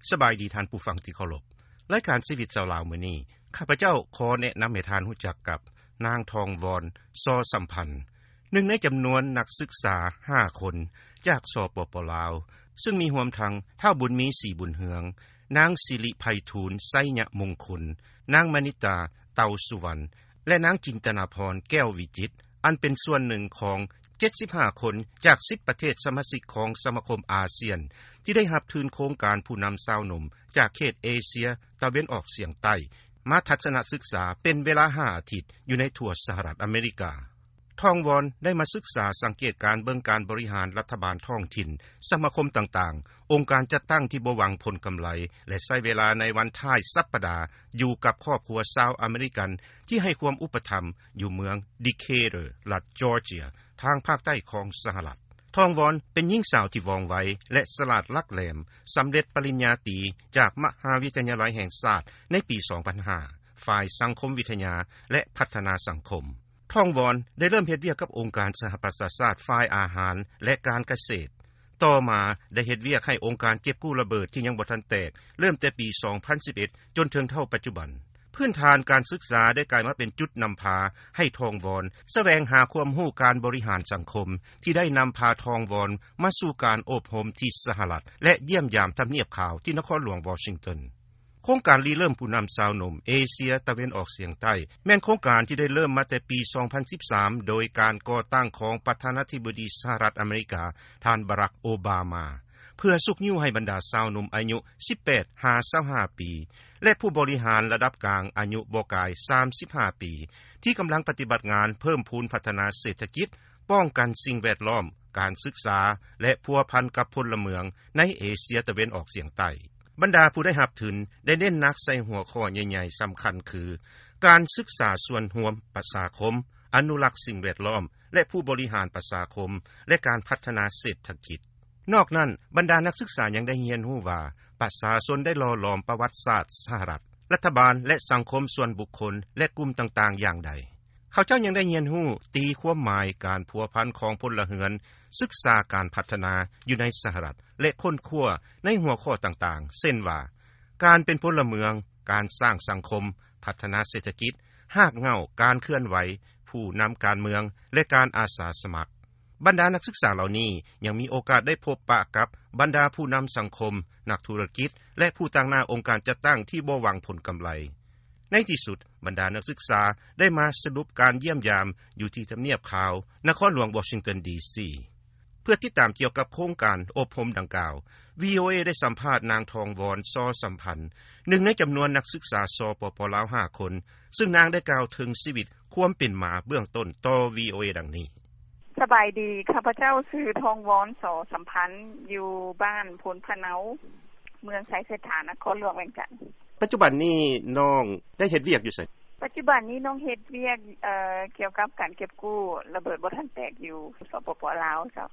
ສະບາຍດີທ່ານຜູ້ຟັງທີ່ເຄົາລົບ. ລາຍການຊີວິດຊາວລາວມື້ນີ້ ຂ້າພະເຈົ້າຂໍແນະນຳໃຫ້ທ່ານຮູ້ຈັກກັບ ນາງ ທອງວອນ ຊໍສຳພັນ, ໜຶ່ງໃນຈຳນວນນັກສຶກສາຫ້າຄົນ ຈາກ ສປປ ລາວ ຊຶ່ງມີຮວມທັງ ທ້າວ ບຸນມີ ສີບຸນເຮືອງ, ນາງ ສິລິໄພທູນ ໄຊຍະມົງຄຸນ, ນາງ ມະນິດຕາ ເຕົາສຸວັນ ແລະ ນາງ ຈິນຕະນາພອນ ແກ້ວວິຈິດ ອັນເປັນສ່ວນໜຶ່ງຂອງເຈັດສິບຫ້າຄົນ ຈາກສິບປະເທດສະມາຊິກຂອງສະມາຄົມອາຊຽນ ທີ່ໄດ້ຮັບທຶນໂຄງການຜູ້ນຳຊາວໜຸ່ມ ຈາກເຂດເອເຊຍຕາເວັນອອກສຽງໃຕ້ ມາທັດສະນະສຶກສາເປັນເວລາຫ້າອາທິດ ຢູ່ໃນທົ່ວສະຫະລັດອາເມລິກາ. ທອງວອນ ໄດ້ມາສຶກສາສັງເກດການເບິ່ງການບໍລິຫານລັດຖະບານທ້ອງຖິ່ນ, ສະມາຄົມຕ່າງໆ, ອົງການຈັດຕັ້ງທີ່ບໍ່ຫວັງຜົນກຳໄລ ແລະ ໃຊ້ເວລາໃນວັນທ້າຍສັບປະດາຢູ່ກັບຄອບຄົວຊາວອາເມລິກັນ ທີ່ໃຫ້ຄວາມອຸປະຖຳຢູ່ເມືອງ ດີເຄເຕີ ລັດຈອເຈຍ ທາງພາກໃຕ້ຂອງສະຫະລັດ. ທອງວອນ ເປັນຍິງສາວທີ່ວ່ອງໄວ ແລະ ສະຫຼາດຫຼັກແຫຼມ, ສຳເລັດປະລິນຍາຕີຈາກມະຫາວິທະຍາໄລແຫ່ງຊາດໃນປີສອງພັນຫ້າ ຝ່າຍສັງຄົມວິທະຍາ ແລະ ພັດທະນາສັງຄົມ. ທອງວອນ ໄດ້ເລີ່ມເຮັດວຽກກັບອົງການສະຫະປະຊາຊາດຝ່າຍອາຫານ ແລະ ການກະເສດ. ຕໍ່ມາໄດ້ເຮັດວຽກໃຫ້ອົງການເກັບກູ້ລະເບີດທີ່ຍັງບໍ່ທັນແຕກ ເລີ່ມແຕ່ປີສອງພັນສິບເອັດ ຈົນເຖິງເທົ່າປັດຈຸບັນ. ພື້ນຖານການສຶກສາໄດ້ກາຍມາເປັນຈຸດນຳພາໃຫ້ທອງວອນສະແຫວງຫາຄວາມຮູ້ການບໍລິຫານສັງຄົມ ທີ່ໄດ້ນຳພາທອງວອນມາສູ່ການອົບຮົມທີ່ສະຫະລັດ ແລະ ຢ້ຽມຢາມທຳນຽບຂາວທີ່ນະຄອນຫຼວງວໍຊິງຕັນ. ໂຄງການລິເລີ່ມຜູ້ນຳຊາວໜຸ່ມເອເຊຍຕາເວັນອອກສຽງໃຕ້ ແມ່ນໂຄງການທີ່ໄດ້ເລີ່ມມາແຕ່ປີສອງພັນສິບສາມ ໂດຍການກໍ່ຕັ້ງຂອງປະທານາທິບໍດີສະຫະລັດອາເມລິກາ ທ່ານ ບາຣັກ ໂອບາມາ ເພື່ອຊຸກຍູ້ໃຫ້ບັນດາຊາວໜຸ່ມອາຍຸສິບແປດຫາຊາວຫ້າປີ ແລະ ຜູ້ບໍລິຫານລະດັບກາງອາຍຸບໍ່ກາຍສາມສິບຫ້າປີ ທີ່ກຳລັງປະຕິບັດງານເພີ່ມພູນພັດທະນາເສດຖະກິດ, ປ້ອງກັນສິ່ງແວດລ້ອມ, ການສຶກສາ ແລະ ພົວພັນກັບພົນລະເມືອງໃນເອເຊຍຕາເວັນອອກສຽງໃຕ້. ບັນດາຜູ້ໄດ້ຮັບທຶນໄດ້ເນັ້ນໜັກໃສ່ຫົວຂໍ້ໃຫຍ່ໆສຳຄັນຄື ການສຶກສາສ່ວນຮວມປະຊາຄົມ, ອະນຸລັກສິ່ງແວດລ້ອມ ແລະ ຜູ້ບໍລິຫານປະຊາຄົມ ແລະ ການພັດທະນາເສດຖະກິດ. ນອກນັ້ນ, ບັນດານັກສຶກສາຍັງໄດ້ຮຽນຮູ້ວ່າ ປະຊາຊົນໄດ້ຫຼໍ່ຫຼອມປະຫວັດສາດສະຫະລັດ, ລັດຖະບານ ແລະ ສັງຄົມສ່ວນບຸກຄົນ ແລະ ກຸ່ມຕ່າງໆຢ່າງໃດ. ເຂົາເຈົ້າຍັງໄດ້ຮຽນຮູ້ຕີຄວາມໝາຍການພົວພັນຂອງພົນລະເຮືອນ, ສຶກສາການພັດທະນາຢູ່ໃນສະຫະລັດ ແລະ ຄົ້ນຄວ້າໃນຫົວຂໍ້ຕ່າງໆ ເຊັ່ນວ່າ ການເປັນພົນລະເມືອງ, ການສ້າງສັງຄົມ, ພັດທະນາເສດຖະກິດ, ຮາກເຫງົ້າການເຄື່ອນໄຫວ, ຜູ້ນຳການເມືອງ ແລະ ການອາສາສະໝັກ. ບັນດານັກສຶກສາເຫຼົ່ານີ້ຍັງມີໂອກາດໄດ້ພົບປະກັບບັນດາຜູ້ນຳສັງຄົມ, ນັກທຸລະກິດ ແລະ ຜູ້ຕາງໜ້າອົງການຈັດຕັ້ງທີ່ບໍ່ຫວັງຜົນກຳໄລ. ໃນທີ່ສຸດ, ບັນດານັກສຶກສາໄດ້ມາສະຫຼຸບການຢ້ຽມຢາມຢູ່ທີ່ທຳນຽບຂາວ, ນະຄອນຫຼວງວໍຊິງຕັນ ດີຊີ. ເພື່ອຕິດຕາມກ່ຽວກັບໂຄງການອົບຮົມດັ່ງກ່າວ, ວີໂອເອ ໄດ້ສຳພາດນາງ ທອງວອນ ຊໍສຳພັນ, ໜຶ່ງໃນຈຳນວນນັກສຶກສາ ສປປ ລາວ ຫ້າຄົນ, ຊຶ່ງນາງໄດ້ກ່າວເຖິງຊີວິດຄວາມເປັນມາເບື້ອງຕົ້ນຕໍ່ ວີໂອເອ ດັ່ງນີ້. ສະບາຍດີ, ຂ້າພະເຈົ້າຊື່ ທອງວອນ ຊໍສຳພັນ, ຢູ່ບ້ານໂພນພະເນົາ, ເມືອງໄຊເສດຖາ, ນະຄອນຫຼວງວຽງຈັນ. ປັດຈຸບັນນີ້ນ້ອງໄດ້ເຮັດວຽກຢູ່ໃສ? ປັດຈຸບັນນີ້ນ້ອງເຮັດວຽກ ເອີ ກ່ຽວກັບການເກັບກູ້ລະເບີດບໍ່ທັນແຕກຢູ່ ສປປ ລາວ ເຈົ້າ.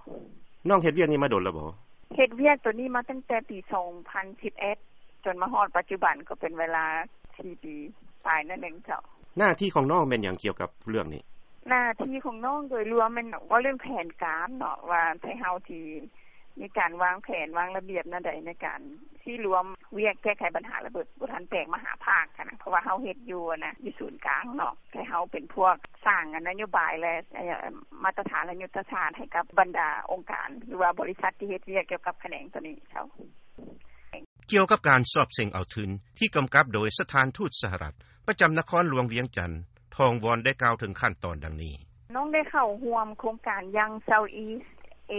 ນ້ອງເຮັດວຽກນີ້ມາດົນແລ້ວບໍ່? ເຮັດວຽກໂຕນີ້ມາຕັ້ງແຕ່ປີສອງພັນສິບເອັດ ຈົນມາຮອດປັດຈຸບັນກໍເປັນເວລາສີ່ປີປາຍໜ້ອຍໜຶ່ງເຈົ້າ. ໜ້າທີ່ຂອງນ້ອງແມ່ນຫຍັງກ່ຽວກັບເລື່ອງນີ້? ໜ້າທີ່ຂອງນ້ອງໂດຍລວມແມ່ນເວົ້າເລື່ອງແຜນການເນາະ ວ່າໄທເຮົາຊິມີການວາງແຜນວາງລະບຽບແນວໃດໃນການຊິລວມວຽກແກ້ໄຂບັນຫາລະເບີດບໍ່ທັນແຕກມະຫາພາກຫັ້ນນະ ເພາະວ່າເຮົາເຮັດຢູ່ຫັ້ນນະ ຢູ່ສູນກາງເນາະ ໄທເຮົາເປັນພວກສ້າງນະໂຍບາຍ ແລະ ມາດຕະຖານ ແລະ ຍຸດທະສາດໃຫ້ກັບບັນດາອົງການ ຫຼືວ່າບໍລິສັດທີ່ເຮັດວຽກກ່ຽວກັບຂະແໜງໂຕນີ້ເຈົ້າ. ກ່ຽວກັບການສອບເສັງເອົາທຶນທີ່ກຳກັບໂດຍສະຖານທູດສະຫະລັດປະຈຳນະຄອນຫຼວງວຽງຈັນ, ທອງວອນໄດ້ກ່າວເຖິງຂັ້ນຕອນດັ່ງນີ້. ນ້ອງໄດ້ເຂົ້າຮ່ວມໂຄງການ Young Southeast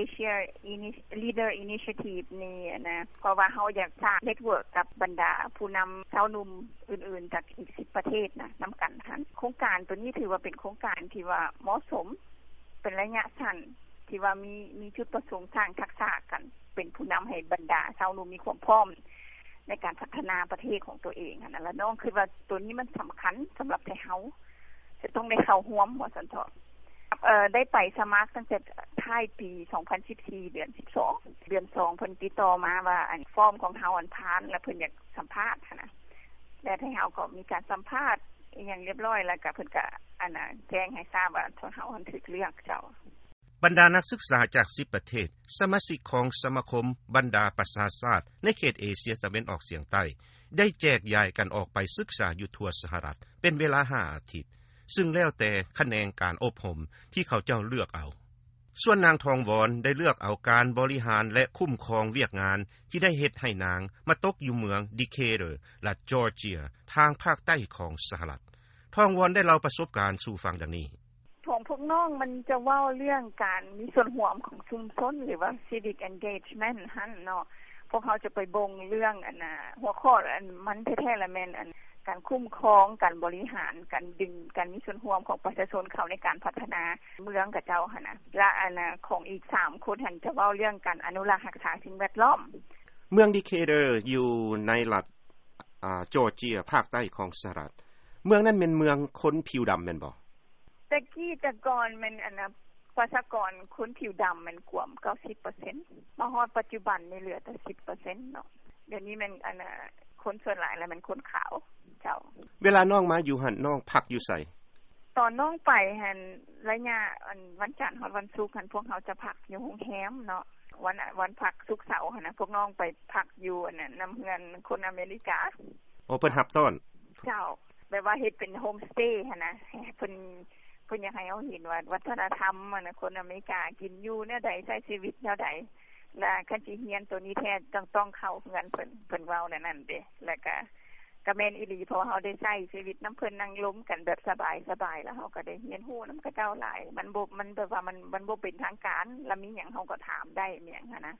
Asia Ini- Leader Initiative ນີ້ນະ ເພາະວ່າເຮົາຢາກສ້າງເນັດເວີກກັບບັນດາຜູ້ນຳຊາວໜຸ່ມອື່ນໆ ຈາກອີກສິບປະເທດນະ ນຳກັນຫັ້ນ. ໂຄງການໂຕນີ້ຖືວ່າເປັນໂຄງການທີ່ວ່າເໝາະສົມ ເປັນໄລຍະສັ້ນ ທີ່ວ່າມີ ມີຈຸດປະສົງສ້າງທັກສະການເປັນຜູ້ນຳໃຫ້ບັນດາຊາວໜຸ່ມມີຄວາມພ້ອມໃນການພັດທະນາປະເທດຂອງຕົວເອງຫັ້ນນະ ແລະ ນ້ອງຄິດວ່າໂຕນີ້ມັນສຳຄັນສຳລັບໄທເຮົາ ຈະຕ້ອງໄດ້ເຂົ້າຮ່ວມວ່າຊັ້ນເຖາະ. ເອີ ໄດ້ໄປສະໝັກຕັ້ງແຕ່ທ້າຍປີສອງພັນສິບສີ່ ເດືອນສິບສອງ ເດືອນສອງ ເພິ່ນຕິດຕໍ່ມາວ່າ ອັນ ຟອມຂອງເຮົາ ອັນ ຜ່ານ ແລະ ເພິ່ນຢາກສຳພາດຫັ້ນນະ ແລະ ໄທເຮົາກໍມີການສຳພາດອີ່ຫຍັງລຽບລ້ອຍ ແລ້ວກໍເພິ່ນກໍ ອັນ ແຈ້ງໃຫ້ຊາບວ່າ ທາງເຮົາ ອັນ ຖືກເລືອກເຈົ້າ. ບັນດານັກສຶກສາຈາກ ສິບ ປະເທດ ສະມາຊິກຂອງສະມາຄົມບັນດາປະຊາຊາດໃນເຂດເອເຊຍຕາເວັນອອກສຽງໃຕ້ ໄດ້ແຈກຢາຍກັນອອກໄປສຶກສາຢູ່ທົ່ວສະຫະລັດ ເປັນເວລາ ຫ້າ ອາທິດ ຊຶ່ງແລ້ວແຕ່ຂະແໜງການອົບຮົມທີ່ເຂົາເຈົ້າເລືອກເອົາ. ສ່ວນນາງ ທອງວອນ ໄດ້ເລືອກເອົາການບໍລິຫານ ແລະ ຄຸ້ມຄອງວຽກງານທີ່ໄດ້ເຮັດໃຫ້ນາງມາຕົກຢູ່ເມືອງ ດີເຄເດີ ລັດຈອເຈຍ ທາງພາກໃຕ້ຂອງສະຫະລັດ. ທອງວອນ ໄດ້ເລົ່າປະສົບການສູ່ຟັງດັ່ງນີ້. ຂອງພວກນ້ອງມັນຈະເວົ້າເລື່ອງການມີສ່ວນຮ່ວມຂອງຊຸມຊົນ ຫຼືວ່າ civic engagement ຫັ້ນເນາະ. ພວກເຮົາຈະໄປເບິ່ງເລື່ອງອັນນ່າ ຫົວຂໍ້ອັນມັນແທ້ໆລະແມ່ນອັນການຄຸ້ມຄອງ ການບໍລິຫານ ການດຶງ ການມີສ່ວນຮ່ວມຂອງປະຊາຊົນເຂົ້າໃນການພັດທະນາເມືອງຂະເຈົ້າຫັ້ນນະ ແລະ ອັນນ່າ ຂອງອີກສາມຄົນຫັ້ນຈະເວົ້າເລື່ອງການອະນຸລັກຮັກສາສິ່ງແວດລ້ອມ. ເມືອງດີເຄເດີ ຢູ່ໃນລັດ ອາ ຈອເຈຍ ພາກໃຕ້ຂອງສະຫະລັດ. ເມືອງນັ້ນແມ່ນເມືອງຄົນຜິວດຳແມ່ນບໍ່? ແຕ່ກີ້ແຕ່ກ່ອນແມ່ນອັນນ່າ ປະຊາກອນຄົນຜິວດຳແມ່ນກວມເກົ້າສິບເປີເຊັນ ມາຮອດປັດຈຸບັນນີ້ເຫຼືອແຕ່ສິບເປີເຊັນເນາະ. ດຽວນີ້ແມ່ນອັນນ່າ ຄົນສ່ວນຫຼາຍລະແມ່ນຄົນຂາວເຈົ້າ. ເວລານ້ອງມາຢູ່ຫັ້ນ ນ້ອງພັກຢູ່ໃສ? ຕອນນ້ອງໄປຫັ້ນ ໄລຍະອັນວັນຈັນຮອດວັນສຸກຫັ້ນ ພວກເຮົາຈະພັກຢູ່ໂຮງແຮມເນາະ. ວັນ ວັນພັກສຸກເສົາຫັ້ນນະ ພວກນ້ອງໄປພັກຢູ່ອັນນັ້ນ ນຳເຮືອນຄົນອາເມລິກາ. ໂອ້ ເພິ່ນຮັບຕ້ອນ. ເຈົ້າ ແບບວ່າເຮັດເປັນໂຮມສະເຕຫັ້ນນະ ເພິ່ນ ເພິ່ນຢາກໃຫ້ເຮົາເຫັນວ່າວັດທະນະທຳຫັ້ນນະ ຄົນອາເມລິກາກິນຢູ່ແນວໃດ ໃຊ້ຊີວິດແນວໃດ ລະຄັນຊິຮຽນໂຕນີ້ແທ້ຕ້ອງ ຕ້ອງເຂົ້າເຮືອນເພິ່ນ ເພິ່ນເວົ້າແນວນັ້ນເດ້. ລະກະ ກະແມ່ນອີ່ຫຼີ ເພາະວ່າເຮົາໄດ້ໃຊ້ຊີວິດນຳເພິ່ນ ນັ່ງລົມກັນແບບສະບາຍໆ ລະເຮົາກະໄດ້ຮຽນຮູ້ນຳເຂົາເຈົ້າຫຼາຍ. ມັນບໍ່ ມັນແບບວ່າມັນ ມັນບໍ່ເປັນທາງການ ລະມີຫຍັງເຮົາກະຖາມໄດ້ ມີຫຍັງຫັ້ນນະ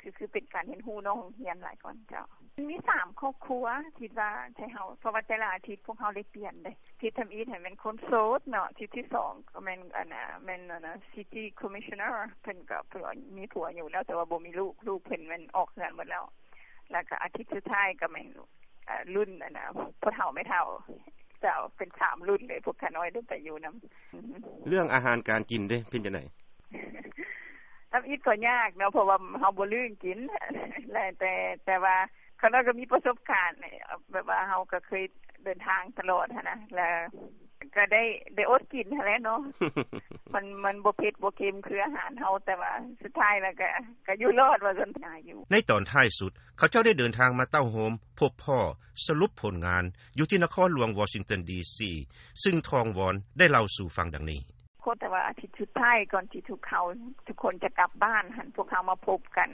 ຄື ຄືເປັນການຮຽນຮູ້ນອກໂຮງຮຽນຫຼາຍກ່ອນເຈົ້າ. ມີສາມຄອບຄົວ ຄິດວ່າໃຫ້ເຮົາ ເພາະວ່າແຕ່ລະອາທິດພວກເຮົາໄດ້ປ່ຽນເດ້. ທິດທຳອິດຫັ້ນແມ່ນຄົນໂສດເນາະ ທິດທີສອງກະແມ່ນອັນນ່າ ແມ່ນອັນນ່າ city commissioner ເພິ່ນກະ ເພິ່ນມີຜົວຢູ່ແລ້ວ ແຕ່ວ່າບໍ່ມີລູກ ລູກເພິ່ນແມ່ນອອກເຮືອນໝົດແລ້ວ. ລະກະອາທິດສຸດທ້າຍກະແມ່ນ ເອີ່ ລຸ້ນອັນນ່າ ພໍ່ເຖົ້າແມ່ເຖົ້າເຈົ້າ ເປັນສາມລຸ້ນເລີຍ ພວກຂ້ານ້ອຍໄດ້ໄປຢູ່ນຳ. ເລື່ອງອາຫານການກິນເດ ເປັນຈັ່ງໃດ? ທຳອິດກໍຍາກເນາະ ເພາະວ່າເຮົາບໍ່ລຶ້ງກິນ ແລະ ແຕ່ ແຕ່ວ່າຂ້ານ້ອຍກໍມີປະສົບການ ແບບວ່າເຮົາກໍເຄີຍເດີນທາງຕະຫຼອດຫັ້ນນະ ລະ ກະໄດ້ ໄດ້ອົດກິນຫັ້ນແຫຼະເນາະ. ມັນ ມັນບໍ່ເຜັດບໍ່ເຄັມຄືອາຫານເຮົາ ແຕ່ວ່າສຸດທ້າຍແລ້ວກະ ກະຢູ່ລອດວ່າຊັ້ນ. ໃນຕອນທ້າຍສຸດ ເຂົາເຈົ້າໄດ້ເດີນທາງມາເຕົ້າໂຮມ ພົບພໍ້ ສະຫຼຸບຜົນງານ ຢູ່ທີ່ນະຄອນຫຼວງວໍຊິງຕັນ ດີຊີ ຊຶ່ງທອງວອນ ໄດ້ເລົ່າສູ່ຟັງດັ່ງນີ້. ແຕ່ວ່າອາທິດສຸດທ້າຍກ່ອນທີ່ທຸກເຮົາ ທຸກຄົນຈະກັບບ້ານຫັ້ນ ພວກເຮົາມາພົບກັນ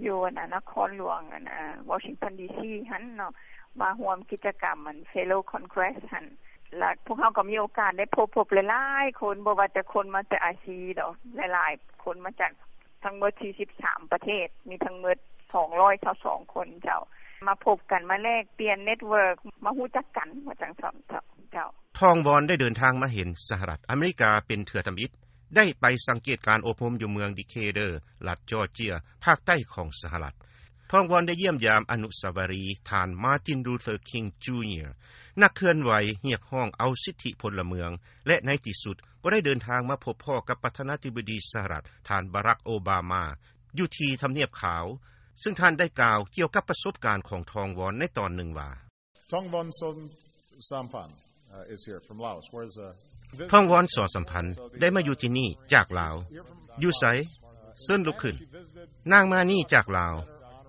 ຢູ່ອັນນ່າ ນະຄອນຫຼວງອັນນ່າ ວໍຊິງຕັນ ດີຊີ ຫັ້ນເນາະ ມາຮ່ວມກິດຈະກຳອັນ Fellow Congress ຫັ້ນ. ລະພວກເຮົາກໍມີໂອກາດໄດ້ພົບ ພົບຫຼາຍໆຄົນ ບໍ່ວ່າແຕ່ຄົນມາຈາກອາຊີດອກ ຫຼາຍໆຄົນມາຈາກທັງໝົດສີ່ສິບສາມປະເທດ ມີທັງໝົດສອງຮ້ອຍຊາວສອງຄົນເຈົ້າ ມາພົບກັນ ມາແລກປ່ຽນ network ມາຮູ້ຈັກກັນ ວ່າຈັ່ງຊັ້ນເຈົ້າ. ທອງວອນ ໄດ້ເດີນທາງມາເຫັນສະຫະລັດອາເມລິກາເປັນເທື່ອທຳອິດ ໄດ້ໄປສັງເກດການອົບຮົມຢູ່ເມືອງ ດີເຄເດີ ລັດຈອເຈຍ ພາກໃຕ້ຂອງສະຫະລັດ. ທອງວອນ ໄດ້ຢ້ຽມຢາມອະນຸສາວະລີທ່ານ Martin Luther King Junior ນັກເຄື່ອນໄຫວຮຽກຮ້ອງເອົາສິດທິພົນລະເມືອງ ແລະ ໃນທີ່ສຸດກໍໄດ້ເດີນທາງມາພົບພໍ້ກັບປະທານາທິບໍດີສະຫະລັດ ທ່ານ ບາຣັກ ໂອບາມາ ຢູ່ທີ່ທຳນຽບຂາວ, ຊຶ່ງທ່ານໄດ້ກ່າວກ່ຽວກັບປະສົບການຂອງທອງວອນໃນຕອນໜຶ່ງວ່າ. Thongvon Soshampan, uh, is here from Laos. Where's, uh, ທອງວອນ ສໍສຳພັນ ໄດ້ມາຢູ່ທີ່ນີ້ຈາກລາວ. ຢູ່ໃສ? ເຊີນລຸກຂຶ້ນ. ນາງມານີ້ຈາກລາວ.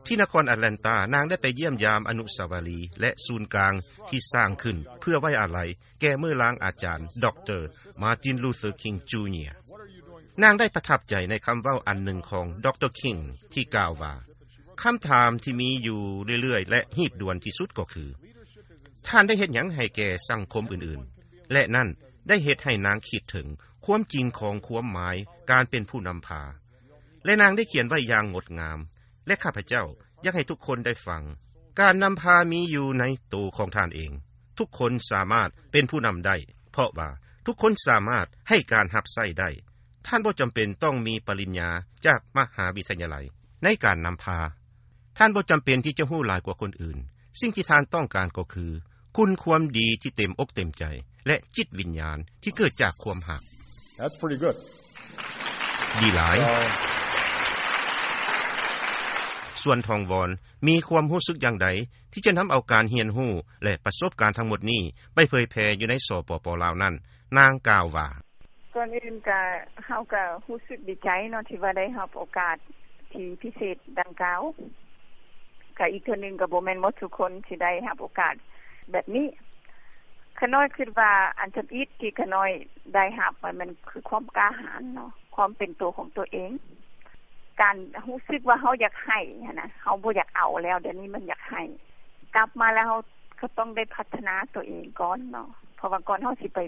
ທີ່ນະຄອນອາດແລນຕາ, ນາງໄດ້ໄປຢ້ຽມຢາມອະນຸສາວະລີ ແລະ ສູນກາງທີ່ສ້າງຂຶ້ນເພື່ອໄວ້ອາໄລແກ່ເມີ່ອລາງອາຈານ ດຣ. Martin Luther King Junior. ນາງໄດ້ປະທັບໃຈໃນຄຳເວົ້າອັນໜຶ່ງຂອງ ດຣ. King ທີ່ກ່າວວ່າ, ຄຳຖາມທີ່ມີຢູ່ເລື້ອຍໆ ແລະ ຮີບດ່ວນທີ່ສຸດກໍຄື, ທ່ານໄດ້ເຮັດຫຍັງໃຫ້ແກ່ສັງຄົມອື່ນໆ? ແລະ ນັ້ນໄດ້ເຮັດໃຫ້ນາງຄິດເຖິງຄວາມຈິງຂອງຄວາມໝາຍການເປັນຜູ້ນຳພາ. ແລະ ນາງໄດ້ຂຽນໄວ້ຢ່າງງົດງາມ, ແລະ ຂ້າພະເຈົ້າຢາກໃຫ້ທຸກຄົນໄດ້ຟັງ. ການນຳພາມີຢູ່ໃນໂຕຂອງທ່ານເອງ. ທຸກຄົນສາມາດເປັນຜູ້ນຳໄດ້, ເພາະວ່າທຸກຄົນສາມາດໃຫ້ການຮັບໃຊ້ໄດ້. ທ່ານບໍ່ຈຳເປັນຕ້ອງມີປະລິນຍາຈາກມະຫາວິທະຍາໄລໃນການນຳພາ. ທ່ານບໍ່ຈຳເປັນທີ່ຈະຮູ້ຫຼາຍກວ່າຄົນອື່ນ. ສິ່ງທີ່ທ່ານຕ້ອງການກໍຄື ຄຸນຄວາມດີທີ່ເຕັມອົກເຕັມໃຈ ແລະ ຈິດວິນຍານທີ່ເກີດຈາກຄວາມຮັກ. That's pretty good. ດີຫຼາຍ. ສ່ວນທອງວອນ ມີຄວາມຮູ້ສຶກຢ່າງໃດທີ່ຈະນຳເອົາການຮຽນຮູ້ ແລະ ປະສົບການທັງໝົດນີ້ໄປເຜີຍແຜ່ຢູ່ໃນ ສປປ ລາວ ນັ້ນ, ນາງກ່າວວ່າ. ກ່ອນອື່ນກໍ ເຮົາກໍຮູ້ສຶກດີໃຈເນາະ ທີ່ວ່າໄດ້ຮັບໂອກາດທີ່ພິເສດດັ່ງກ່າວ. ກໍອີກເທື່ອໜຶ່ງ ກໍບໍ່ແມ່ນໝົດທຸກຄົນທີ່ໄດ້ຮັບໂອກາດແບບນີ້. ຂ້ານ້ອຍຄິດວ່າອັນທຳອິດທີ່ຂ້ານ້ອຍໄດ້ຮັບ ມັນ ມັນຄືຄວາມກ້າຫານເນາະ, ຄວາມເປັນຕົວຂອງຕົວເອງ, ການຮູ້ສຶກວ່າເຮົາຢາກໃຫ້ຫັ້ນນະ, ເຮົາບໍ່ຢາກເອົາແລ້ວ, ດຽວນີ້ມັນຢາກໃຫ້. ກັບມາແລ້ວເຮົາກໍຕ້ອງໄດ້ພັດທະນາຕົວເອງກ່ອນເນາະ, ເພາະວ່າກ່ອນເຮົາຊິໄປ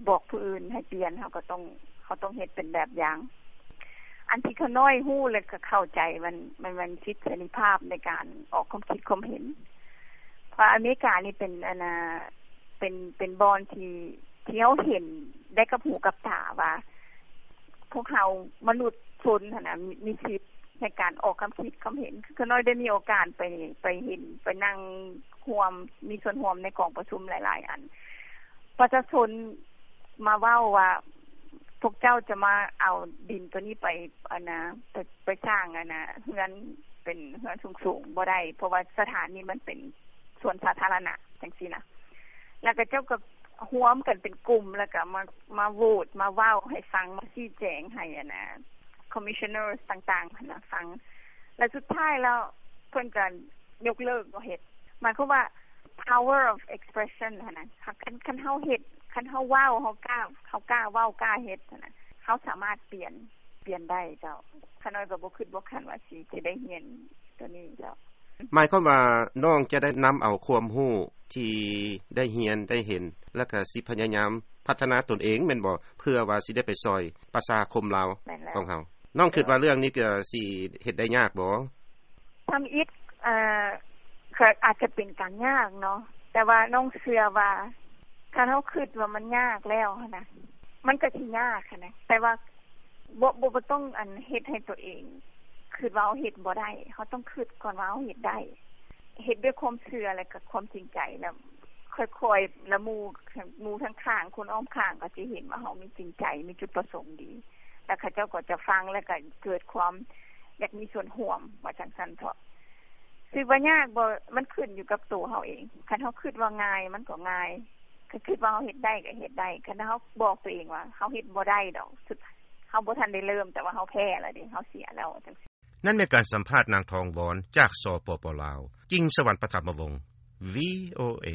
ບອກຜູ້ອື່ນໃຫ້ປ່ຽນ, ເຮົາກໍຕ້ອງ ເຮົາຕ້ອງເຮັດເປັນແບບຢ່າງ. ອັນທີ່ຂ້ານ້ອຍຮູ້ ແລະ ກໍເຂົ້າໃຈ ມັນ ມັນ ມັນສິດເສລີພາບໃນການອອກຄວາມຄິດຄວາມເຫັນ, ເພາະອາເມລິການີ້ເປັນ ອັນນາ ເປັນ ເປັນບ່ອນທີ່ ທີ່ເຮົາເຫັນໄດ້ກັບຫູກັບຕາວ່າ ພວກເຮົາມະນຸດຊົນຫັ້ນນະ ມີ ມີສິດໃນການອອກຄຳຄິດຄຳເຫັນ. ຄືຂ້ານ້ອຍໄດ້ມີໂອກາດໄປ ໄປເຫັນ ໄປນັ່ງຮ່ວມ ມີສ່ວນຮ່ວມໃນກອງປະຊຸມຫຼາຍໆອັນ. ປະຊາຊົນມາເວົ້າວ່າ ພວກເຈົ້າຈະມາເອົາດິນໂຕນີ້ໄປ ອັນນາ ໄປ ໄປສ້າງ ອັນນາ ເຮືອນ ເປັນເຮືອນສູງໆບໍ່ໄດ້, ເພາະວ່າສະຖານນີ້ມັນເປັນສວນສາທາລະນະ ຈັ່ງຊີ້ນະ. ແລ້ວກໍເຈົ້າກໍຮວມກັນເປັນກຸ່ມ ແລ້ວກໍມາ ມາໂຫວດ ມາເວົ້າໃຫ້ຟັງ ມາຊີ້ແຈງໃຫ້ ອັນນາ commissioners ຕ່າງໆຫັ້ນນະຟັງ. ແລ້ວສຸດທ້າຍແລ້ວເພິ່ນກໍຍົກເລີກບໍ່ເຮັດ. ໝາຍຄວາມວ່າ power of expression ຫັ້ນນະ, ຄັນ ຄັນເຮົາເຮັດ ຄັນເຮົາເວົ້າ ເຮົາກ້າ ເຮົາກ້າເວົ້າ ກ້າເຮັດຫັ້ນນະ, ເຮົາສາມາດປ່ຽນ ປ່ຽນໄດ້ເຈົ້າ. ຂ້ານ້ອຍກໍບໍ່ຄິດບໍ່ຝັນວ່າຊິ ຊິໄດ້ຮຽນໂຕນີ້ເຈົ້າ. ໝາຍຄວາມວ່ານ້ອງຈະໄດ້ນຳເອົາຄວາມຮູ້ທີ່ໄດ້ຮຽນໄດ້ເຫັນ ແລ້ວກໍຊິພະຍາຍາມພັດທະນາຕົນເອງແມ່ນບໍ່? ເພື່ອວ່າຊິໄດ້ໄປຊ່ອຍປະຊາຄົມລາວ ແມ່ນແລ້ວ ຂອງເຮົາ. ນ້ອງຄິດວ່າເລື່ອງນີ້ກໍຊິເຮັດໄດ້ຍາກບໍ່? ທຳອິດ ເອີ ກໍອາດຈະເປັນການຍາກເນາະ, ແຕ່ວ່ານ້ອງເຊື່ອວ່າ ຄັນເຮົາຄິດວ່າມັນຍາກແລ້ວຫັ້ນນະ ມັນກໍຊິຍາກຫັ້ນນະ. ແຕ່ວ່າບໍ່ ບໍ່ ບໍ່ຕ້ອງ ອັນ ເຮັດໃຫ້ຕົວເອງຄິດວ່າເຮົາເຮັດບໍ່ໄດ້, ເຮົາຕ້ອງຄິດກ່ອນວ່າເຮົາເຮັດໄດ້. ເຮັດດ້ວຍຄວາມເຊື່ອ ແລະ ກໍຄວາມຈິງໃຈ, ແລ້ວຄ່ອຍໆ ແລ້ວໝູ່ ໝູ່ທາງຂ້າງ ຄົນອ້ອມຂ້າງກໍຊິເຫັນວ່າເຮົາມີຈິງໃຈ ມີຈຸດປະສົງດີ, ແລ້ວເຂົາເຈົ້າກໍຈະຟັງ ແລ້ວກໍເກີດຄວາມຢາກມີສ່ວນຮ່ວມ ວ່າຈັ່ງຊັ້ນເຖາະ. ຊິວ່າຍາກບໍ່? ມັນຂຶ້ນຢູ່ກັບໂຕເຮົາເອງ. ຄັນເຮົາຄິດວ່າງ່າຍ ມັນກໍງ່າຍ, ຄັນຄິດວ່າເຮົາເຮັດໄດ້ກໍເຮັດໄດ້. ຄັນເຮົາບອກຕົວເອງວ່າເຮົາເຮັດບໍ່ໄດ້ດອກ, ເຮົາບໍ່ທັນໄດ້ເລີ່ມ ແຕ່ວ່າເຮົາແພ້ແລ້ວເດ້, ເຮົາເສຍແລ້ວ ຈັ່ງຊີ້. ນັ້ນແມ່ນການສຳພາດນາງ ທອງວອນ ຈາກ ສປປ ລາວ. ຈິງສະຫວັນ ປະທຳມະວົງ ວີໂອເອ.